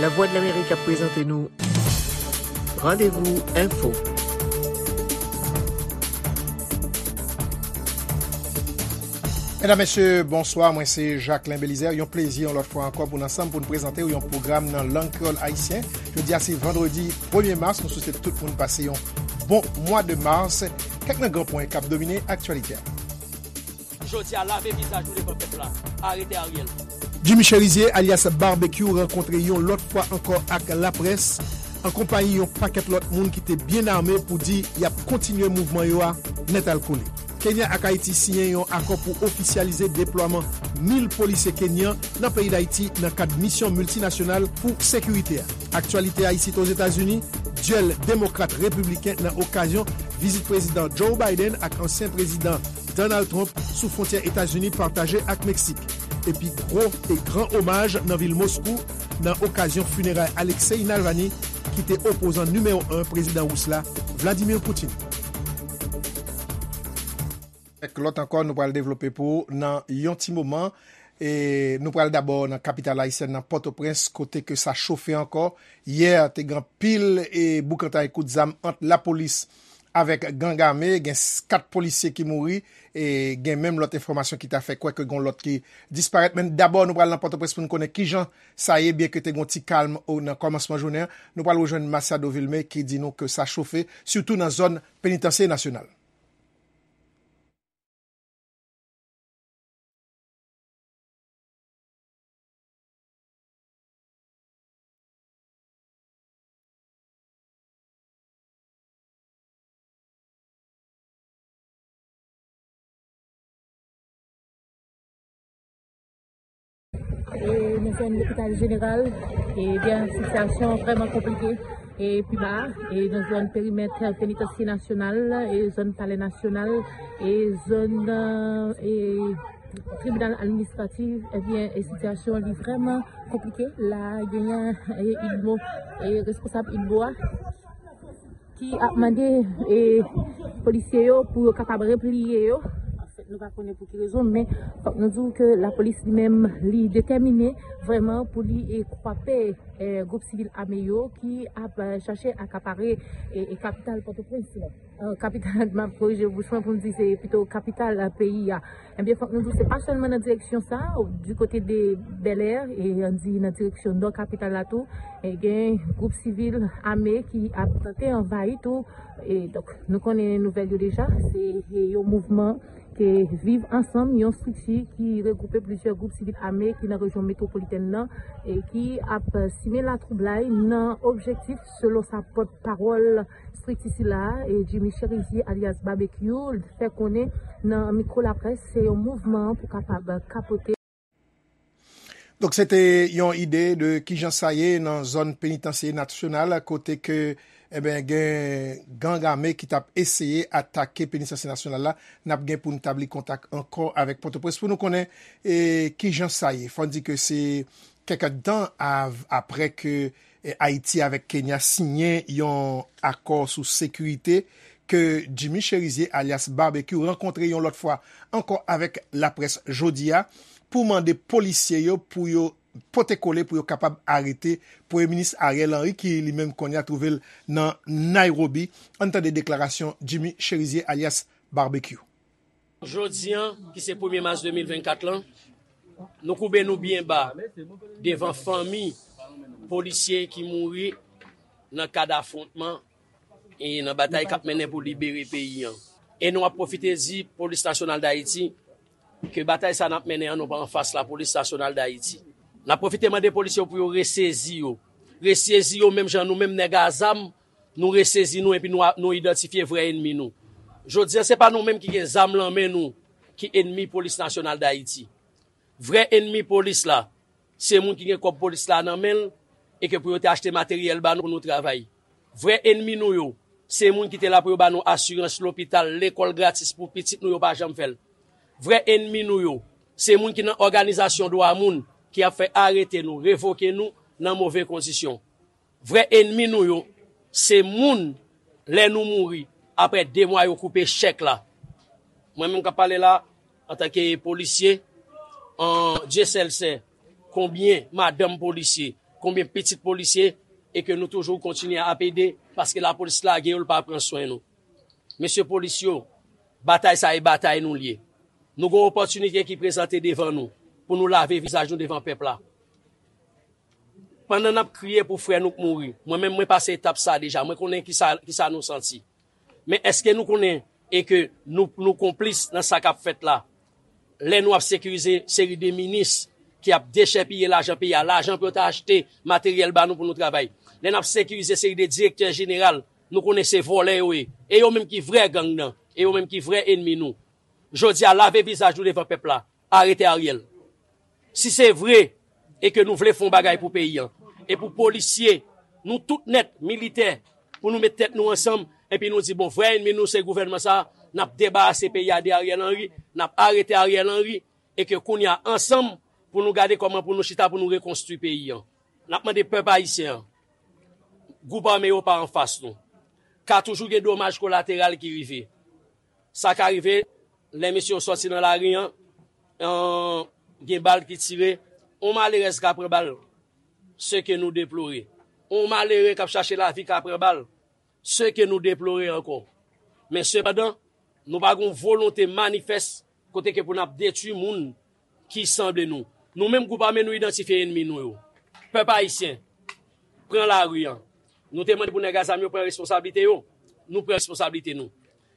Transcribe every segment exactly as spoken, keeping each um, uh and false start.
Lavwadlamerik ap prezante nou Randevou Enfo. Medam, mesye, bonswa. Mwen se Jacquelin Belizaire. Yon plezi, yon lòt fwa ankò, pou n ansanm pou n prezante w yon pwogram nan lang kreyòl ayisyen. Jodi a se vandredi premye mas. Nou swete tout moun pase yon bon mwa de mas. Kèk nan gran pwen k ap domine aktyalite a. Jodi a, lave vizaj nou devan pèp la. Arete Ariel. Jimmy Cherizier, alyas Barbecue, rankontre yon lòt fwa ankò ak laprès, an konpayi yon pakèt lòt moun ki te byen ame pou di y ap kontinye mouvman yo a nètalkole. Kenya ak Ayiti siyen yon akò pou ofisyalize deplwaman mil polisye kenyan nan peyi Dayiti nan kad misyon miltinasyonal pou sekirite a. Aktyalite a isit Ozetazini, dyèl demokrat-repibliken nan okazyon vizit prezidan Joe Biden ak ansyen prezidan Donald Trump sou fwontyè Etazini pataje ak Meksik. Epi gwo e gran omaj nan vil Moskou nan okazyon fineray Alexei Navalny, ki te opozan nimewo en prezidan ris la, Vladimir Putin. Kèk lòt ankò nou pral devlope pou w nan yon ti moman. E nou pral dabò nan kapital ayisyèn nan, Pòtoprens, kote ke sa chofe ankò. Yè, te gen anpil e boukantay kout zam ant lapolis avèk gang ame. Gen s-, kat polisye ki mouri, e gen menm lòt enfòmasyon ki ta fè kwè ke gen lòt ki disparèt. Men dabò, nou pral nan Pòtoprens pou n konnen kijan sa ye, byenke te gen yon ti kalm o, nan kòmansman jounen an. Nou pral rejwenn Masiado Vilmé ki di nou ke sa chofe, sitou nan zòn Penitansye Nasyonal. E nan zòn lopital jeneral, ebyen, sitiyasyon vrèman konplike. E pi ba, e nan zòn perimèt Penitansye Nasyonal, e zòn Palè Nasyonal, e zòn, e tribinal administratif, ebyen, e sitiyasyon li vrèman konplike. La, genyen, e idmo, e responsab idmo a ki ap mande, e polisye yo pou yo kapab repliye yo. Anfèt, nou pa konnen pou ki rezon, men fòk nou di w ke lapolis li menm, li detèmine vrèman pou li, e kwape, e gwoup sivil ame yo ki ap, e chache akapare, e, e kapital Pòtoprens la. E, kapital, m ap korije bouch mwen pou m di se pito kapital, e, peyi a. Ebyen, fòk nou di, se pa sèlman nan direksyon sa, di kote de Bèlè, e ann di nan direksyon nò kapital la tou, e gen gwoup sivil ame ki ap tante anvayi tou. E donk, nou konnen nouvèl yo deja, se, e yon mouvman ke Viv Ansanm, yon estrikti ki regwoupe plizyè gwoup sivil ame ki nan rejyon metwopolitèn nan, e ki ap simen latwoublay nan objektif, selon sa pòtpawòl estrikti sila a, e Jimmy Cherizier alyas Barbecue, fè konnen nan mikwo laprès, se yon mouvman pou kapab kapote. Donk, se te yon ide de kijan sa ye nan zòn Penitansye Nasyonal, kote ke, eben, gen gang ame ki t ap eseye atake Penitansye Nasyonal la. N ap gen pou n tabli kontak ankò avèk Pòtoprens pou nou konnen, e, kijan sa ye. Fò n di ke se kèk èdtan av-, aprè ke, e, Ayiti avèk Kenya siyen yon akò sou sekirite, ke Jimmy Cherizier, alyas Barbecue, rankontre yon lòt fwa ankò avèk laprès jodi a pou mande polisye yo pou yo pote kole pou yo kapab arete Premye Minis Ariel Henry, ki li menm kounye a twouve l nan Nairobi. Ann tande deklarasyon Jimmy Cherizier, alyas Barbecue. Jodi a, ki se premye mas de mil vennkat lan, nou koube nou byen ba devan fanmi polisye ki mouri nan kad afwontman e nan batay k ap mennen pou libere peyi a. E nou ap pwofite di Polis Nasyonal d Ayiti ke batay sa n ap mennen an, nou pa anfas Lapolis Nasyonal d Ayiti. N ap pwofite mande polisye yo pou yo resezi yo. Resezi yo menm jan nou menm nèg a zam, nou resezi nou epi nou a, nou idantifye vrè enmi nou. Jodi a, se pa nou menm ki gen zam lan men nou ki enmi Polis Nasyonal d Ayiti. Vrè enmi polis la, se moun ki gen kòb polis la nan men l e ke pou yo te achte materyèl ba nou pou nou travay. Vrè enmi nou yo, se moun ki te la pou yo ba nou asirans lopital, lekòl gratis pou pitit nou, yo pa janm fè l. Vrè enmi nou yo, se moun ki nan òganizasyon dwa moun ki ap fè arete nou, revoke nou nan move kondisyon. Vrè enmi nou yo, se moun, lè nou mouri, aprè de mwa yo koupe chèk la. Mwen menm k ap pale la, antanke polisye, an Dye sèl sè, konbyen madanm polisye, konbyen pitit polisye e ke nou toujou kontinye ap ede, paske lapolis lage yo, l pa pran swen nou. Mesye polis yo, batay sa e batay nou l ye. Nou gen opòtinite ki prezante devan nou pou nou lave vizaj nou devan pèp la. Pandan n ap kriye pou frè nou k mouri, mwen menm mwen pase etap sa deja, mwen konnen kisa, kisa nou santi. Men èske nou konnen e ke nou, nou konplis nan sa k ap fèt la? Lè nou ap sekirize seri de minis ki ap dechèpiye lajan peyi a, lajan pou yo ta achte materyèl ba nou pou nou travay. Lè n ap sekirize seri de direktè jeneral, nou konnen se vòlè yo ye. E yo menm ki vrè gang nan, e yo menm ki vrè enmi nou. Jodi a, lave vizaj nou devan pèp la, arete Ariel. Si se vre e ke nou vle fè yon bagay pou peyi an, e pou polisye, nou tout nèt, militè, pou nou met tèt nou ansanm, epi nou di, bon, vrè enmi nou se gouvènman sa, n ap debarase peyi a de Ariel Henry, n ap arete Ariel Henry, e ke kounye a ansanm pou nou gade kòman pou nou chita pou nou rekonstwi peyi an. N ap mande pèp ayisyen an, gwoup ame yo pa anfas nou. Ka toujou gen domaj kolateral ki rive. Sa ka rive, lè mesye yo sòti nan lari an, an, gen bal ki tire, on malerèz ka pran bal, se ke nou deplore. On malere k ap chache lavi ka pran bal, se ke nou deplore ankò. Men sepandan, nou pa gen yon volonte manifès kote ke pou n ap detwi moun ki sanble nou. Nou menm gwoup ame nou idantifye enmi nou yo. Pèp ayisyen, pran lari an. Nou te mande pou nèg a zam yo pran responsablite yo. Nou pran responsablite nou.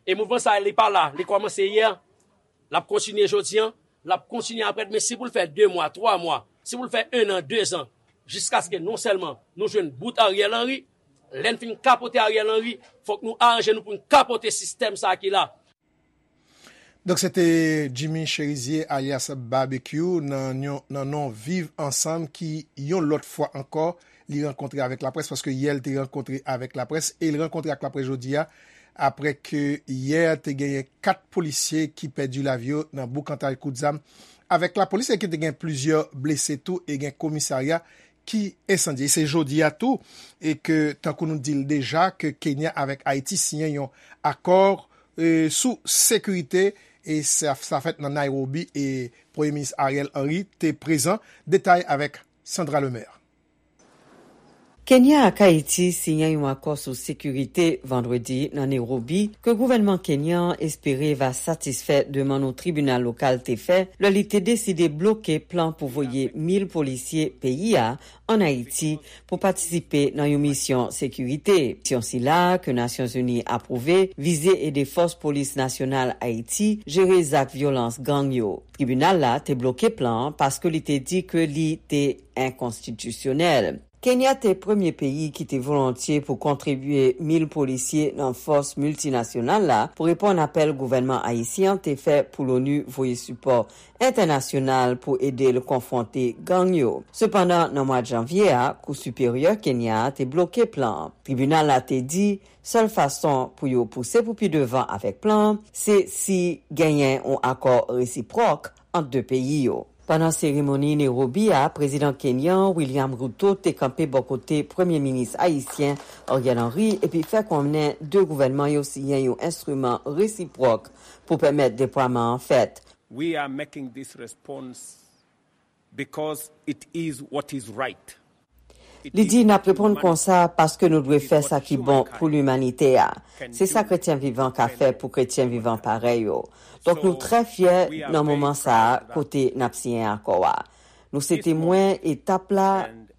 E mouvman sa a, li pa la, li kòmanse yè, l ap kontinye jodi an, l ap kontinye aprè demen, si pou l fè de mwa, twa mwa, si pou l fè en an, de zan, jiskaske non sèlman nou jwenn bout Ariel Henry, lè n fin kapote Ariel Henry, fòk nou aranje nou pou n kapote sistèm sa a ki la. Donk, se te Jimmy Cherizier, alyas Barbecue, nan yon, nan non Viv Ansanm, ki, yon lòt fwa ankò, li rankontre avèk laprès, paske yè l te rankontre avèk laprès, e l rankontre ak laprès jodi a, apre ke yè te genyen kat polisye ki pèdi lavi yo nan boukantay kout zam avèk lapolis, e ki te gen plizyè blese tou, e gen komisarya ki ensandye. E se jodi a tou, e ke, tankou nou di l deja, ke Kenya avèk Ayiti siyen yon akò, e, sou sekirite, e sa, sa fèt nan Nairobi, e Premye Minis Ariel Henry te prezan. Detay avèk Sandra Lemaire. Kenya ak Ayiti siyen yon akò sou sekirite vandredi nan Nairobi ke gouvènman kenyan an espere va satisfè demann yon tribinal lokal te fè lè li te deside bloke plan pou voye mil polisye peyi a ann Ayiti pou patisipe nan yon misyon sekirite. Misyon sila, ke Nasyonzini apwouve, vize ede fòs polis nasyonal Ayiti jere zak vyolans gang yo. Tribinal la te bloke plan an paske li te di ke li te enkonstitisyonèl. Kenya te premye peyi ki te volontye pou kontribye mil polisye nan fòs miltinasyonal la pou reponn apèl gouvènman ayisyen an te fè pou l'ONU voye sipò entènasyonal pou ede l konfwonte gang yo. Sepandan, nan mwa janvye a, Kou Siperyè Kenya a te bloke plan an. Tribinal la te di, sèl fason pou yo pouse pou pi devan avèk plan an, se si genyen yon akò resipwòk ant de peyi yo. Pandan seremoni Nairobi a, prezidan kenyan William Ruto te kanpe bò kote premye minis ayisyen Ariel Henry epi fè konnen de gouvènman yo siyen yon enstriman resipwòk pou pèmèt deplwaman an fèt. We are making this response because it is what is right. Li di, n ap reponn konsa paske nou dwe fè sa ki bon pou limanite a. Se sa kretyen vivan ka fè pou kretyen vivan parèy yo. Donk, nou trè fyè nan moman sa a kote n ap siyen akò a. Nou se temwen etap la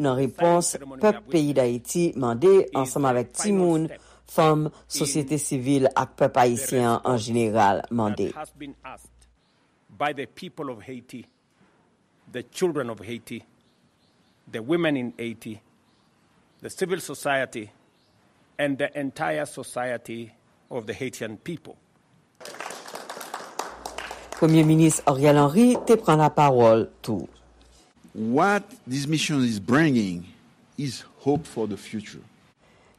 nan repons pèp peyi Dayiti mande ansanm avèk timoun, fanm, sosyete sivil ak pèp ayisyen an an jeneral mande. By the people of Haiti, the children of Haiti, the women in Haiti, the civil society, and the entire society of the Haitian people. Premye Minis Ariel Henry te pran lapawòl tou. What this mission is bringing is hope for the future.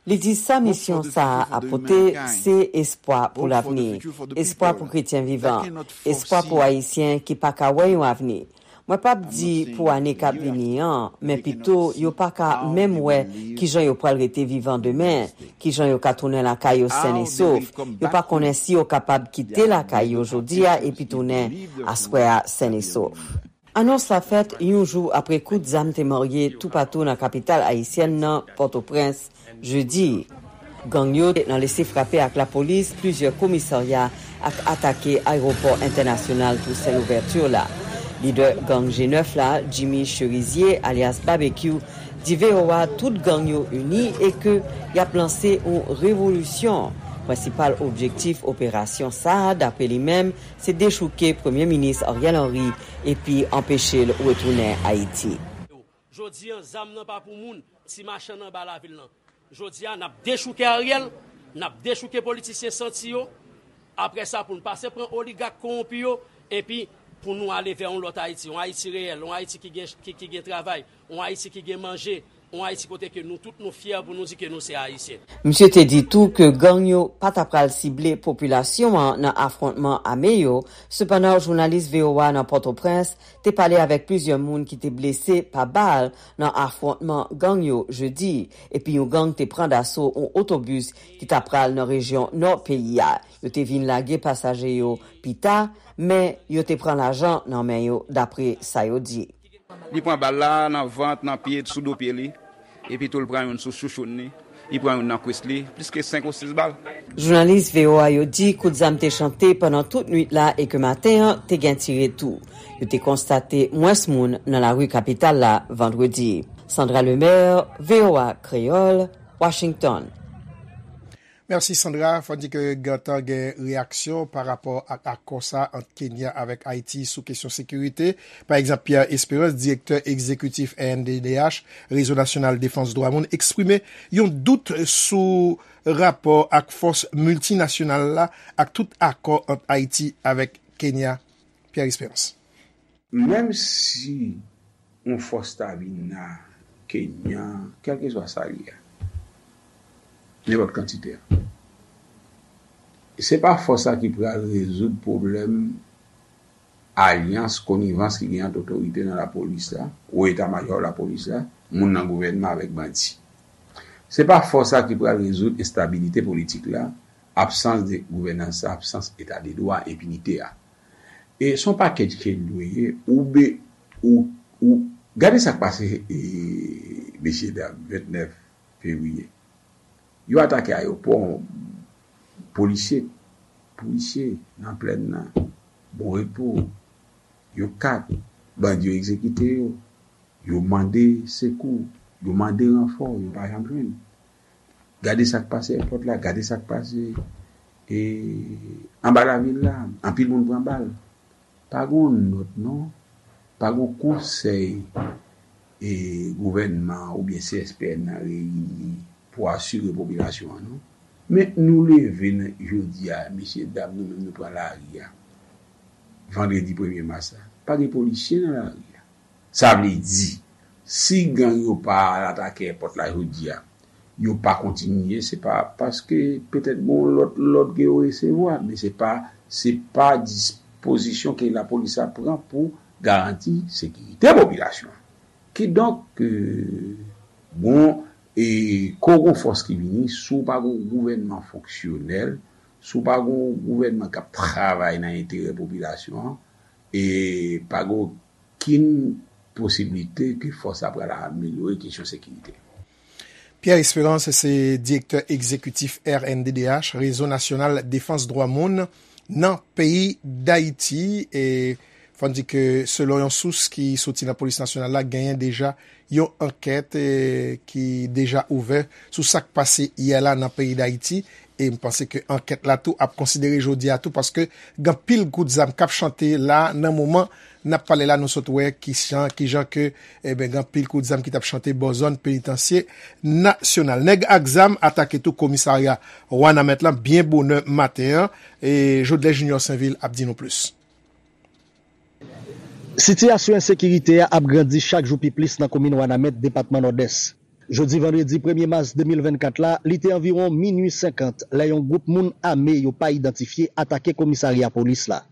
Li di sa misyon sa a ap pote, se espwa pou lavni, espwa pou kretyen vivan, espwa pou Ayisyen ki pa ka wè yon avni. Mwen p ap di pou ane k ap vini an, men pito yo pa ka menm wè kijan yo pral rete vivan demen, kijan yo ka tounen lakay yo sèn e sof. Yo pa konnen si yo kapab kite lakay yo jodi a epi tounen aswè a sèn e sof. Anons la fèt yon jou apre kout zam te marye toupatou nan kapital ayisyèn nan, Pòtoprens, jedi. Gang yo te nan lese frape ak lapolis, plizyè komisarya ak atake ayewopò entènasyonal Toussaint Louverture la. Lidè gang G nèf la, Jimmy Cherizier, alyas Babekyou, di V O A tout gang yo ini e ke y ap lanse yon revolisyon. Prensipal objektif operasyon sa a, dapre li menm, se dechouke Premye Minis Ariel Henry epi anpeche l retounen Ayiti. Jodi a, zam nan pa pou moun, ti machann anba lavil nan. Jodi a, n ap dechouke Ariel, n ap dechouke politisyen santi yo. Apre sa, pou n pase pran oligak kowonpi yo, epi pou nou ale vè yon lòt Ayiti, yon Ayiti reyèl, yon Ayiti ki gen, ki, ki gen travay, yon Ayiti ki gen manje, yon Ayiti kote ke nou tout nou fyè pou nou di ke nou se Ayisyen. Misye te di tou ke gang yo pa ta pral sible popilasyon an nan afwontman ame yo, sepandan jounalis V O A nan Pòtoprens te pale avèk plizyè moun ki te blese pa bal nan afwontman gang yo jedi, epi yon gang te pran daso yon otobis ki ta pral nan rejyon nò peyi a. Yo te vin lage pasaje yo pita, men yo te pran lajan nan men yo, dapre sa yo di. Li pran bal la nan vant, nan pye, sou do pye li. Epi tou l pran youn sou chouchoun li. Li pran youn nan kwis li, plis ke senk ou sis bal. Jounalis V O A yo di kout zam te chante pandan tout nwit la e ke maten an te gen tire tou. Yo te konstate mwens moun nan lari kapital la vandredi. Sandra Lemaire, V O A Kreyòl, Washington. Mèsi Sandra. Fò n di ke gentan gen reyaksyon pa rapò ak akò sa ant Kenya avèk Ayiti sou kesyon sekirite. Pa egzanp, Pierre Espérance, direktè egzekitif R N D D H, Rezo Nasyonal Defans Dwa Moun, eksprime yon dout sou rapò ak fòs miltinasyonal la ak tout akò ant Ayiti avèk Kenya. Pierre Espérance. Menm si yon fòs ta vin nan Kenya, kèlkeswa sa l ye a, nenpòt kantite a, se pa fòs sa ki pral rezoud pwoblèm alyans, konivans ki gen ant otorite nan lapolis la, wo eta majò lapolis la, moun nan gouvènman avèk bandi. Se pa fòs sa ki pral rezoud enstabilite politik la, absans de gouvènans, absans eta de dwa, enpinite a. E se yon pakèj ke l dwe ye, ou be, ou, ou, gade sa k pase, e, mesye dam, vennèf fevriye. Yo atake ayewopò, polisye, polisye nan plèn nan, Bon Repo, yo kat, bandi yo egzekite yo, yo mande sekou, yo mande ranfò, yo pa janm jwenn. Gade sa k pase èpòt la, gade sa k pase, e, anba lavil la, anpil moun pran bal. Pa gen yon nòt non, pa gen yon konsèy, e, gouvènman oubyen C S P N nan reyini pou asire popilasyon an non. Men nou leve nan jodi a, mesye dam, nou menm nou pran lari a. Vandredi premye mas la, pa gen polisye nan lari a. Sa vle di, si gang yo pa al atake èpòt la jodi a, yo pa kontinye, se pa paske petèt gen yon lòt lòd ke yo resevwa, men se pa, se pa dispozisyon ke lapolis ap pran pou garanti sekirite popilasyon an. Kidonk, e, bon, e, ke w gen fòs ki vini, si w pa gen yon gouvènman fonksyonèl, si w pa gen yon gouvènman k ap travay nan enterè popilasyon an, e pa gen okenn posiblite ke fòs la pral amelyore kesyon sekirite. Pierre Espérance se direktè egzekitif R N D D H, Rezo Nasyonal Defans Dwa Moun, nan peyi Dayiti. E fò n di ke, selon yon sous ki soti nan Polis Nasyonal la, genyen deja yon ankèt, e, ki deja ouvè sou sa k pase yè la nan peyi Dayiti. E m panse ke ankèt la tou ap konsidere jodi a tou, paske gen anpil kout zam k ap chante la nan moman n ap pale la, nou sot wè ki jan, ki jan ke, eben, gen anpil kout zam ki t ap chante bò zòn penitansye nasyonal. Nèg ak zam atake tou komisarya Wanament lan byen bonè maten an, e Jodlè Junior Sainvil ap di nou plis. Sitiyasyon ensekirite a ap grandi chak jou pi plis nan komin Wanament, depatman Nòdès. Jodi vandredi premye mas de mil vennkat la, li te anviwon minui senkant lè yon gwoup moun ame yo pa idantifye atake komisarya polis la.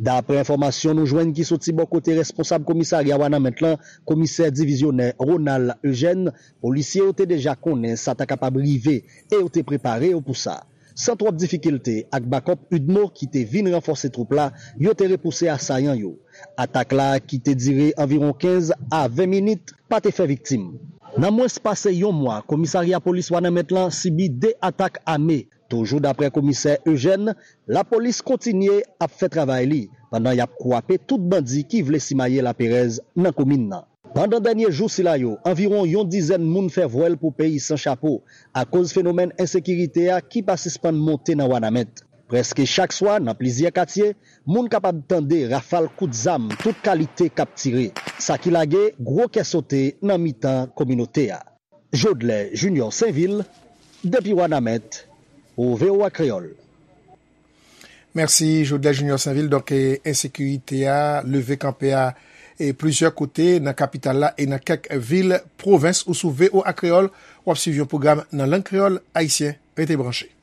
Daprè enfòmasyon nou jwenn ki soti bò kote responsab komisarya Wanament lan, komisè divizyonè Ronald Eugène, polisye yo te deja konnen sa ta kapab rive e yo te prepare yo pou sa. San twòp difikilte ak bakòp UDMO ki te vin ranfòse twoup la, yo te repouse asayan yo. Atak la, ki te dire anviwon kenz a ven minit, pa te fè viktim. Nan mwens pase yon mwa, komisarya polis Wanament lan sibi de atak ame. Toujou daprè komisè Eugène, lapolis kontinye ap fè travay li, pandan y ap kwape tout bandi ki vle simaye laperèz nan komin nan. Pandan dènye jou sila yo, anviwon yon dizèn moun fè vwèl pou peyi san chapo, akoz fenomèn ensekirite a ki pa sispann monte nan Wanament. Prèske chak swa, nan plizyè katye, moun kapab tande rafal kout zam tout kalite k ap tire, sa ki lage gwo kè sote nan mitan kominote a. Jodlè Junior Sainvil, depi Wanament, pou V O A Kreyòl. Mèsi, Jodlè Junior Sainvil. Donk, e, ensekirite a, leve kanpe a, e plizyè kote nan kapital la e nan kèk vil pwovens. Ou sou V O A Kreyòl, w ap swiv yon pwogram nan lang kreyòl ayisyen. Rete branche.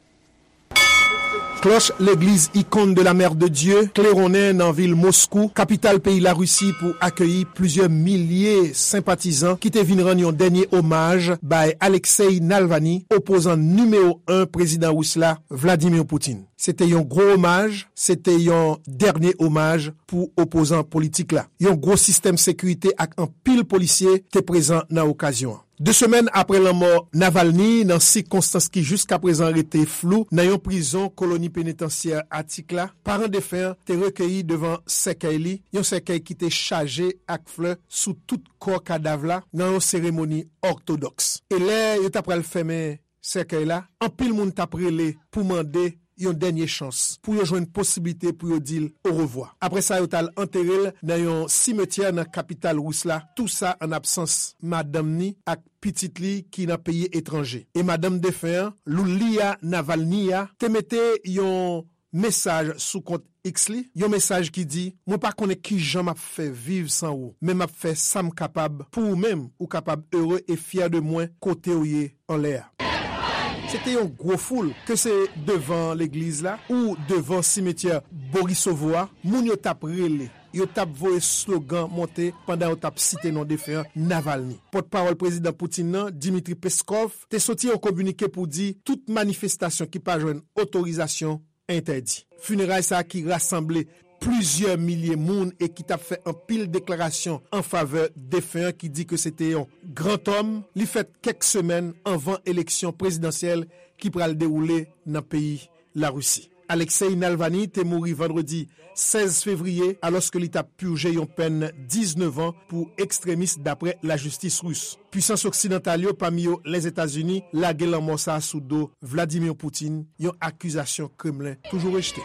Klòch legliz Icône de la Mère de Dieu klewonnen nan vil Moskou, kapital peyi Larisi, pou akeyi plizyè milye senpatizan ki te vin rann yon dènye omaj bay Alexei Navalny, opozan nimewo en prezidan ris la, Vladimir Putin. Se te yon gwo omaj, se te yon dènye omaj pou opozan politik la. Yon gwo sistèm sekirite ak anpil polisye te prezan nan okazyon an. De semèn apre lanmò Navalny, nan sikonstans ki jiskaprezan rete flou, nan yon prizon koloni penitansyè Atik la, paran defen an te rekeyi devan sèkèy li, yon sèkèy ki te chaje ak flè sou tout kò kadav la, nan yon seremoni òtodòks. E lè yo ta pral fèmen sèkèy la, anpil moun t ap rele pou mande yon dènye chans, pou yo jwenn posiblite pou yo di l orevwa. Apre sa, yo t al antere l nan yon simetyè nan kapital ris la, tou sa an absans madanm ni ak pitit li ki nan peyi etranje. E madanm defen an, Lulia Navalnaya, te mete yon mesaj sou kont X li, yon mesaj ki di: "Mwen pa konnen kijan m ap fè viv san ou, men m ap fè sa m kapab pou ou menm, ou kapab ere e fyè de mwen kote w ye anlè a." Se te yon gwo foul, ke se devan legliz la ou devan simetyè Borisovo a, moun yo t ap rele, yo t ap voye slogan monte pandan yo t ap site non defen an, Navalny. Pòtpawòl prezidan Putin nan, Dmitry Peskov, te soti yon kominike pou di tout manifestasyon ki pa jwenn otorizasyon entèdi. Fineray sa a ki rasanble plizyè milye moun e ki t ap fè anpil deklarasyon an favè defen an, ki di ke se te yon gran òm, li fèt kèk semèn anvan eleksyon prezidansyèl ki pral dewoule nan peyi Larisi. Alexei Navalny te mouri vandredi sèz fevriye, alòske li t ap pije yon pèn diznèf an pou ekstremis, dapre lajistis ris. Pwisans oksidantal yo, pami yo Lèzetazini, lage lanmò sa a sou do Vladimir Putin, yon akizasyon Kremlen toujou rejte.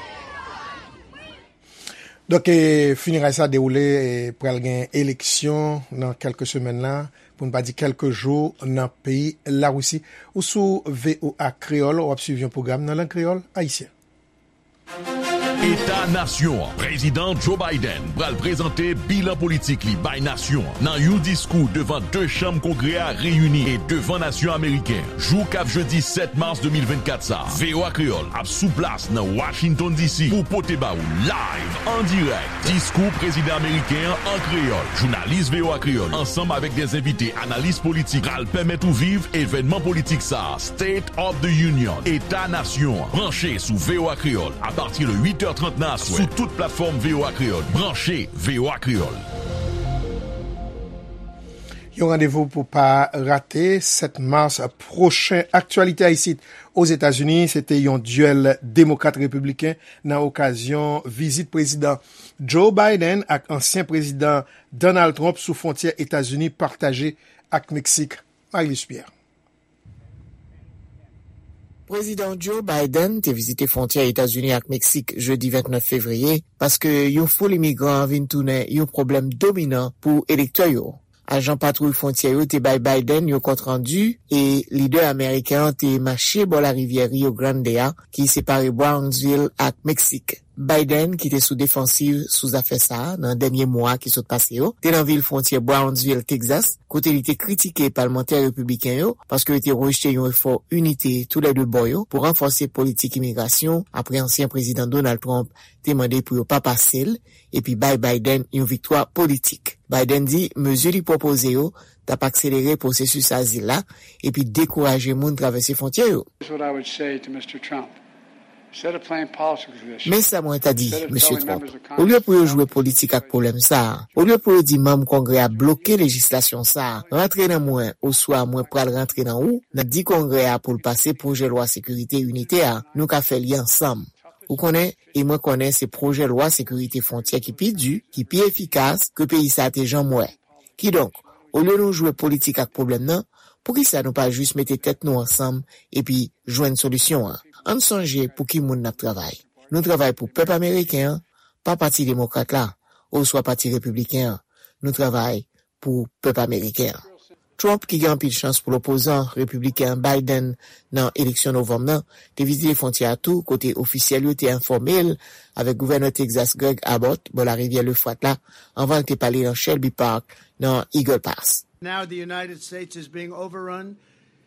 Donk, e, fineray sa dewoule, e, pral gen eleksyon nan kèlke semèn la, pou n pa di kèlke jou, nan peyi Larisi. Ou sou V O A Kreyòl, w ap swiv yon pwogram nan lang kreyòl ayisyen. Eta nasyon an. Prezidan Joe Biden pral prezante bilan politik li bay nasyon an nan yon diskou devan de chanm Kongrè a reyini e devan nasyon ameriken an. Jou k ap jedi sèt mas de mil vennkat sa a, V O A Kreyòl ap sou plas nan Washington D C pou pote ba ou live, an dirèk, diskou prezidan ameriken an an kreyòl. Jounalis V O A Kreyòl, ansanm avèk de envite analis politik, pral pèmèt ou viv evènman politik sa a, State of the Union, Eta Nasyon an. Branche sou V O A Kreyòl apati de uit è trant nan aswè sou tout platfòm V O A Kreyòl. Branche V O A Kreyòl. Yon randevou pou pa rate, sèt mas pwochen. Aktyalite a isit Ozetazini, se te yon dyèl demokrat-repibliken nan okazyon vizit Prezidan Joe Biden ak ansyen Prezidan Donald Trump sou fwontyè Etazini pataje ak Meksik. Marie-Luce Pierre. Prezidan Joe Biden te vizite fwontyè Etazini ak Meksik jedi vennèf fevriye, paske yon foul imigran vin tounen yon pwoblèm dominan pou elektè yo. Ajan patwouy fwontyè yo te bay Biden yon kont randi e lidè ameriken an te mache bò larivyè Rio Grande a, ki separe Brownsville ak Meksik. Biden, ki te sou defansiv sou zafè sa a nan dènye mwa ki sot pase yo, te nan vil fwontyè Brownsville, Texas, kote li te kritike palmantè repibliken yo paske yo te rejte yon efò inite toulède bò yo pou ranfòse politik imigrasyon apre ansyen Prezidan Donald Trump te mande pou yo pa pase l epi bay Biden yon viktwa politik. Biden di mezi li pwopoze yo t ap akselere pwosesis azil la epi dekouraje moun travèse fwontyè yo. Here's what I would say to Mister Trump. Men sa mwen ta di, Mesye Trump. Olye pou yo jwe politik ak pwoblèm sa a, olye pou yo di manm Kongrè a bloke lejislasyon sa a, rantre nan mwen oswa mwen pral rantre nan ou, nan di Kongrè a pou l pase pwojè lwa sekirite initè a, nou ka fè li ansanm. Ou konnen, e mwen konnen se pwojè lwa sekirite fwontyè ki pi di, ki pi efikas ke peyi sa a te janm wè. Kidonk, olye nou jwe politik ak pwoblèm nan, poukisa nou pa jis mete tèt nou ansanm epi jwenn solisyon an? Ann sonje pou ki moun n ap travay. Nou travay pou pèp ameriken an, pa Pati Demokrat la, oswa Pati Repibliken an. Nou travay pou pèp ameriken an. Trump, ki gen anpil chans pou l opozan repibliken an Biden nan eleksyon novanm nan, te vizite fwontyè a tou, kote ofisyèl yo te enfòme l avèk gouvènè Texas Greg Abbott bò larivyè Lefwat la, anvan l te pale nan Shelby Park, nan Eagle Pass. Now the United States is being overrun.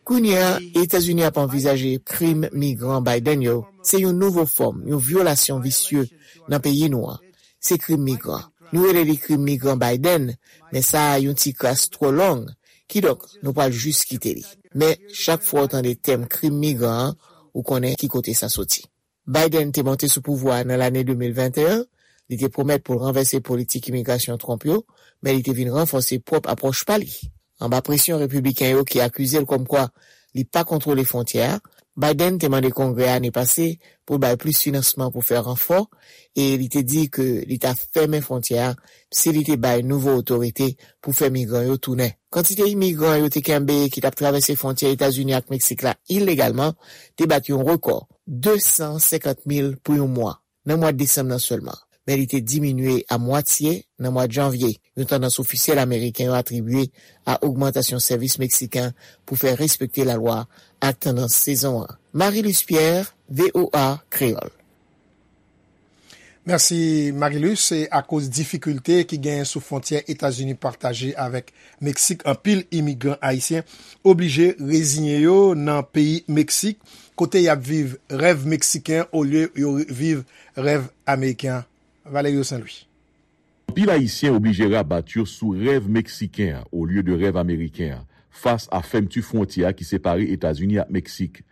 Kounye a, Etazini ap anvizaje krim migran Biden yo. Se yon nouvo fòm, yon vyolasyon visye nan peyi nou an. Se krim migran. Nou rele li krim migran Biden, men sa a yon ti kras twò long. Kidonk, nou pral jis kite li. Men, chak fwa w tande tèm krim migran an, ou konnen ki kote sa soti. Biden te monte sou pouvwa a nan lane de mil venteyen, li te pwomèt pou l ranvèse politik imigrasyon Trump yo, men li te vin ranfòse pwòp apwòch pa li. Anba presyon repibliken yo ki akize l kòmkwa li pa kontwole fwontyè a, Biden te mande Kongrè a ane pase pou l bay plis finansman pou fè ranfò, e li te di ke li ta fèmen fwontyè a si li te bay nouvo otorite pou fè migran yo tounen. Kantite imigran yo te kenbe ki t ap travèse fwontyè Etazini ak Meksik la ilegalman te bat yon rekò, de san senkant mil pou yon mwa, nan mwa desanm nan sèlman. Men li te diminye a mwatye nan mwa janvye, yon tandans ofisyèl ameriken yo atribye a ogmantasyon sèvis meksiken pou fè respekte lalwa ak tandans sezon an. Marie-Luce Pierre, V O A Kreyòl. Mèsi, Marie-Luce. Se akoz difikilte ki genyen sou fwontyè Etazini pataje avèk Meksik, anpil imigran ayisyen oblije reziye yo nan peyi Meksik, kote y ap viv rèv meksiken olye yo viv rèv ameriken an. Valerio Saint Louis. Anpil Ayisyen oblije rabat yo sou rèv meksiken an, olye de rèv ameriken an, fas a fèmti fwontyè a ki separe Etazini ak Meksik.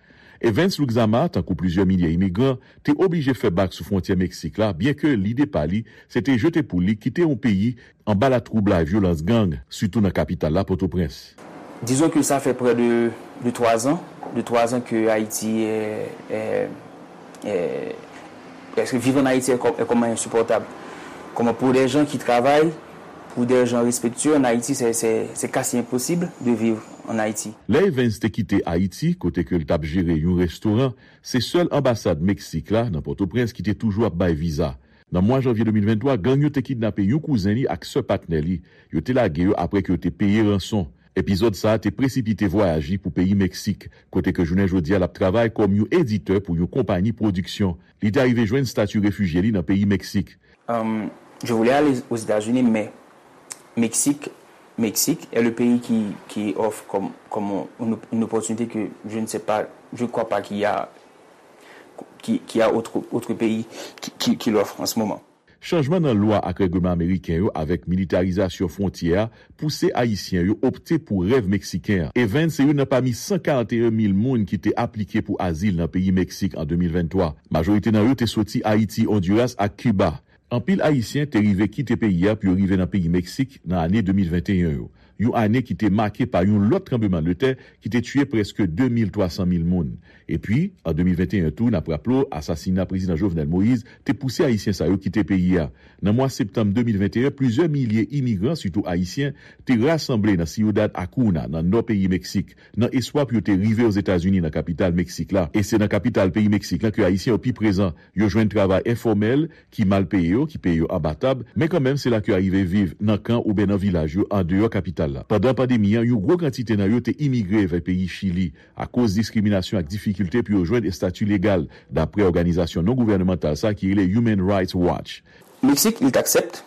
Evans Luxama, tankou plizyè milye imigran, te oblije fè bak sou fwontyè Meksik la, byenke lide pa li, se te jete pou li kite yon peyi anba latwoublay vyolans gang, sitou nan kapital la, Pòtoprens. Disons que ça fait près de, de trois ans, de trois ans que Haïti est, est, est, est-ce que vivre en Haïti est, com- est comme insupportable. Comment pour des gens qui travaillent, pour des gens respectueux en Haïti, c'est, c'est, c'est quasi impossible de vivre en Haïti. Lè Evans te kite Ayiti, kote ke l t ap jere yon restoran, se sèl anbasad Meksik la, nan Pòtoprens, ki te toujou ap bay viza. Nan mwa janvye de mil venntwa, gang yo te kidnape yon kouzen li ak sè patnè li. Yo te lage yo apre ke yo te peye ranson. Epizòd sa a te presipite vwayaj li pou peyi Meksik, kote ke jounen jodi a l ap travay kòm yon editè pou yon konpayi pwodiksyon. Li te arive jwenn stati refijye li nan peyi Meksik. Euh, je voulais aller aux États-Unis, mais Mexique, Mexique est le pays qui, qui offre comme, comme une, une opportunité que je ne sais pas, je ne crois pas qu'il y a, qu'il, qu'il y a autre, autre pays qui, qui, qui l'offre en ce moment. Chanjman nan lwa ak règleman ameriken yo avèk militarizasyon fwontyè a pouse Ayisyen yo opte pou rèv meksiken an. Evans se youn nan pami san karanteyen mil moun ki te aplike pou azil nan peyi Meksik an de mil venntwa. Majorite nan yo te soti Ayiti, Ondiras ak Kiba. Anpil Ayisyen te rive kite peyi a pou yo rive nan peyi Meksik nan ane de mil venteyen yo, yon ane ki te make pa yon lòt tranblemanntè ki te tiye prèske de mil twa san mil moun. Epi, an de mil venteyen tou, n ap raple w, asasina Prezidan Jovenel Moïse te pouse Ayisyen sa yo kite peyi a. Nan mwa septanm de mil venteyen, plizyè milye imigran, sitou Ayisyen, te rasanble nan Ciudad Acuña, nan nò peyi Meksik, nan espwa pou yo te rive Ozetazini, nan kapital Meksik la. E se nan kapital peyi Meksik la ke Ayisyen yo pi prezan. Yo jwenn travay enfòmèl, ki mal peye yo, ki peye yo anba tab, men kanmenm se la ke yo rive viv nan kan oubyen nan vilaj yo andeyò kapital la. Pandan pandemi an, yon gwo kantite nan yo te imigre vè peyi Chili akoz diskriminasyon ak difikilte pou yo jwenn estati legal, dapre òganizasyon non gouvènemantal sa ki rele Human Rights Watch. Mexique, ils t'acceptent.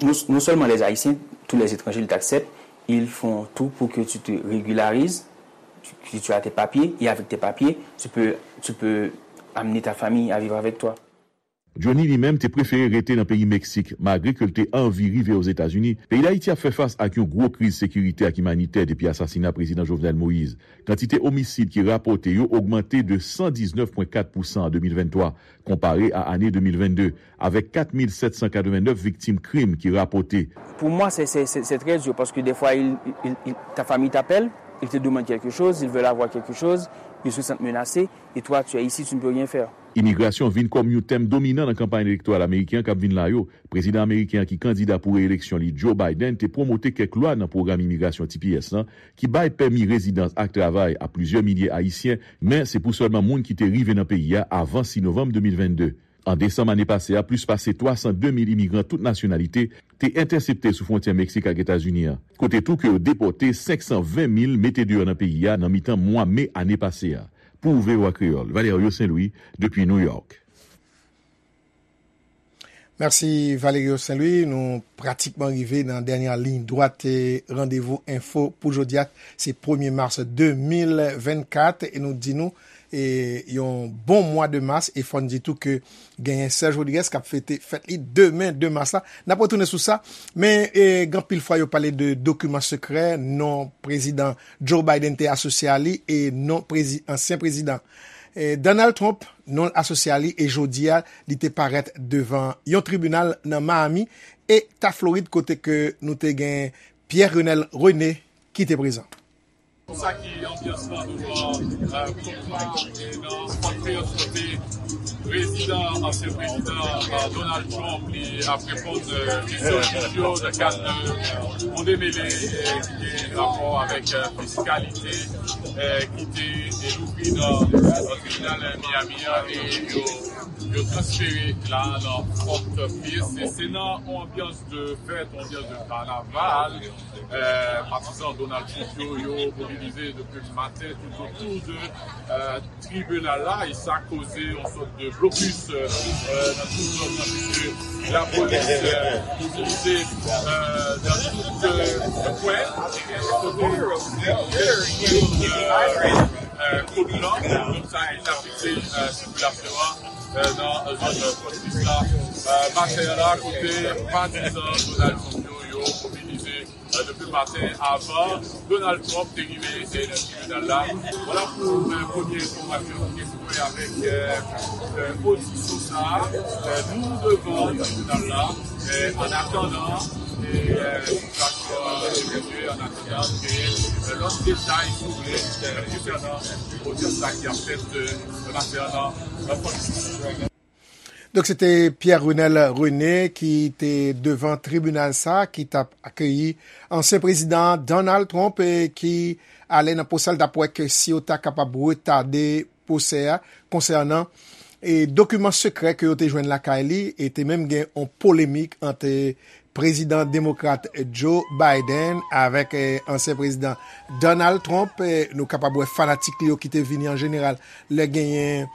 Non, non seulement les Haïtiens, tous les étrangers, ils t'acceptent. Ils font tout pour que tu te régularises, que tu as tes papiers, et avec tes papiers, tu peux, tu peux amener ta famille à vivre avec toi. Johnny li menm te prefere rete nan peyi Meksik, malgre ke l te anvi rive Ozetazini. Peyi Dayiti ap fè fas ak yon gwo kriz sekirite ak imanitè depi asasina Prezidan Jovenel Moïse. Kantite omisid ki rapòte yo ogmante de san diznèf pwen kat pousan an de mil venntwa, konpare a ane de mil vennde, avèk kat mil sèt san katrevennnèf viktim krim ki rapòte. Pour moi, c'est, c'est, c'est, c'est très dur parce que des fois, il, il, il- ta famille t'appelle, ils te demandent quelque chose, ils veulent avoir quelque chose, ils se sentent menacés, et toi, tu es ici, tu ne peux rien faire. Imigrasyon vin kòm yon tèm dominan nan kanpay elektoral ameriken an k ap vin la yo. Prezidan ameriken an ki kandida pou reyeleksyon li, Joe Biden, te pwomote kèk lwa nan pwogram imigrasyon T P S lan ki bay pèmi rezidans ak travay a plizyè milye Ayisyen, men se pou sèlman moun ki te rive nan peyi a avan sis novanm de mil vennde. An desanm ane pase a, plis pase twa san de mil imigran tout nasyonalite te entèsepte sou fwontyè Meksik ak Etazini an, kote tou ke yo depòte senk san ven mil mete deyò nan peyi a nan mitan mwa me ane pase a. Pou V O A Kreyòl, Valerio Saint-Louis, depi New York. Mèsi Valerio Saint-Louis. Nou pratikman rive nan dènyè liy dwat Randevou Enfo pou jodi a. Se premye mas de mil vennkat e nou di nou e, yon bon mwa de mas e fò n di tou ke genyen Serge Rodriguez k ap fete fèt li demen de mas la. N ap retounen sou sa. Men e, gen anpil fwa yo pale de dokiman sekrè, non prezidan Joe Biden te asosye a li e non prezi, ansyen prezidan e, Donald Trump, non l asosye a li e jodi a li te parèt devan yon tribinal nan Miami, Eta Florid kote ke nou te gen Pierre Renel René ki te prezan. Sa ki anbyans lan douvan Kongra nan Fort Pierce kote prezidan, ansyen prezidan Donald Trump li ap reponn kesyon jij yo nan kad yon demele ki gen rapò avèk fiskalite ki te louvri nan tribinal Miami an e yo yo transfere la nan Fort Pierce. Se nan yon anbyans de fèt, yon anbyans de kanaval. Patizan Donald Trump yo, yo mobilize depi maten toutotou de tribinal la e sa koze yon sòt de blokis nan tout zòn nan piske lapolis mobilize nan tout kwen kote kote sa e sa fikse sikilasyon an nan zòn Fort Pierce la maten an la kote patizan Donald Trump yo yo mobilize depi maten avan Donald Trump te rive nan tribinal la. Vwala pou premye enfòmasyon ki te sou avèk odisyon sa a. Nou devan tribinal la. Annatandan, sitiyasyon an evolye, annatandan, gen lòt detay, si w vle, konsènan odyans sa ki ap fèt maten an nan Fort Pierce. Donk, se te Pierre Renel René ki te devan tribinal sa a ki t ap akeyi ansyen prezidan Donald Trump e ki ale nan pwosè l t ap wè ke si yo ta kapab retade pwosè a konsènan e dokiman sekrè ke yo te jwenn lakay li e te menm gen yon polemik ant prezidan demokrat Joe Biden avèk ansyen prezidan Donald Trump. Nou kapab wè fanatik li yo ki te vini an jeneral lè genyen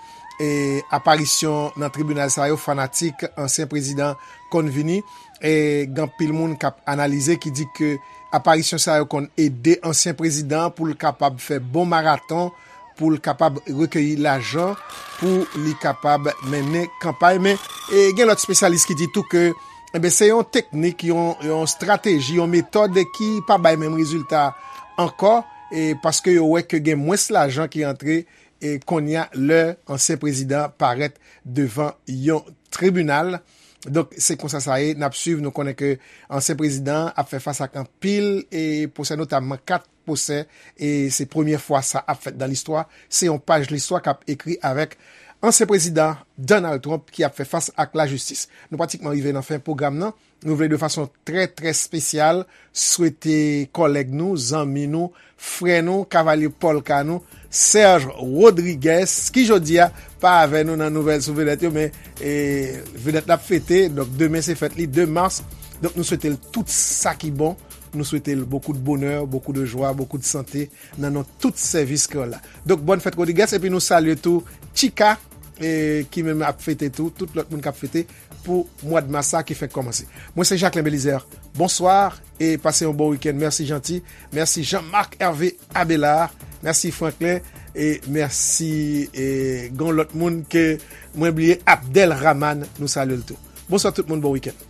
aparisyon nan tribinal sa yo, fanatik ansyen prezidan konn vini. Gen anpil moun k ap analize ki di ke aparisyon sa yo konn ede ansyen prezidan pou l kapab fè bon maraton pou l kapab rekeyi lajan pou li kapab mennen kanpay. Men e, gen lòt espesyalis ki di tou ke enben, se yon teknik, yon, yon estrateji, yon metòd ki pa bay menm rezilta ankò, e, paske yo wè ke gen mwens lajan ki antre e, kounye a lè ansyen prezidan parèt devan yon tribinal. Donk, se konsa sa ye, n ap swiv, nou konnen ke ansyen prezidan an ap fè fas ak anpil e, pwosè, notamman kat pwosè, e se premye fwa sa ap fèt nan listwa. Se yon paj listwa k ap ekri avèk ansyen prezidan Donald Trump ki ap fè fas ak lajistis. Nou pratikman rive nan fen pwogram nan. Nou vle de fason trè, trè espesyal swete kòlèg nou, zanmi nou, frè nou, kavalye pòlka nou, Serge Rodriguez, ki jodi a pa avè nou nan nouvèl sou vedèt yo, men e, vedèt la ap fete, donk demen se fèt li, de mas. Donk nou swete l tout sa ki bon. Nou swete l beaucoup de bonheur, beaucoup de joie, beaucoup de santé nan non tout sèvis kreyòl la. Donk, bòn fèt Rodriguez, epi nou salye tou Tchika, e, ki menm ap fete tou, tout lòt moun k ap fete pou mwa d mas sa ki fèk kòmanse. Mwen se Jacquelin Belizaire. Bonswa e pase yon bon wikenn. Mèsi Janti, mèsi Jean Marc Hervé Abelard, mèsi Franklin, E mèsi. E gen yon lòt moun ke mwen bliye, Abdel Rahman, nou salye l tou. Bonswa tout moun, bon wikenn.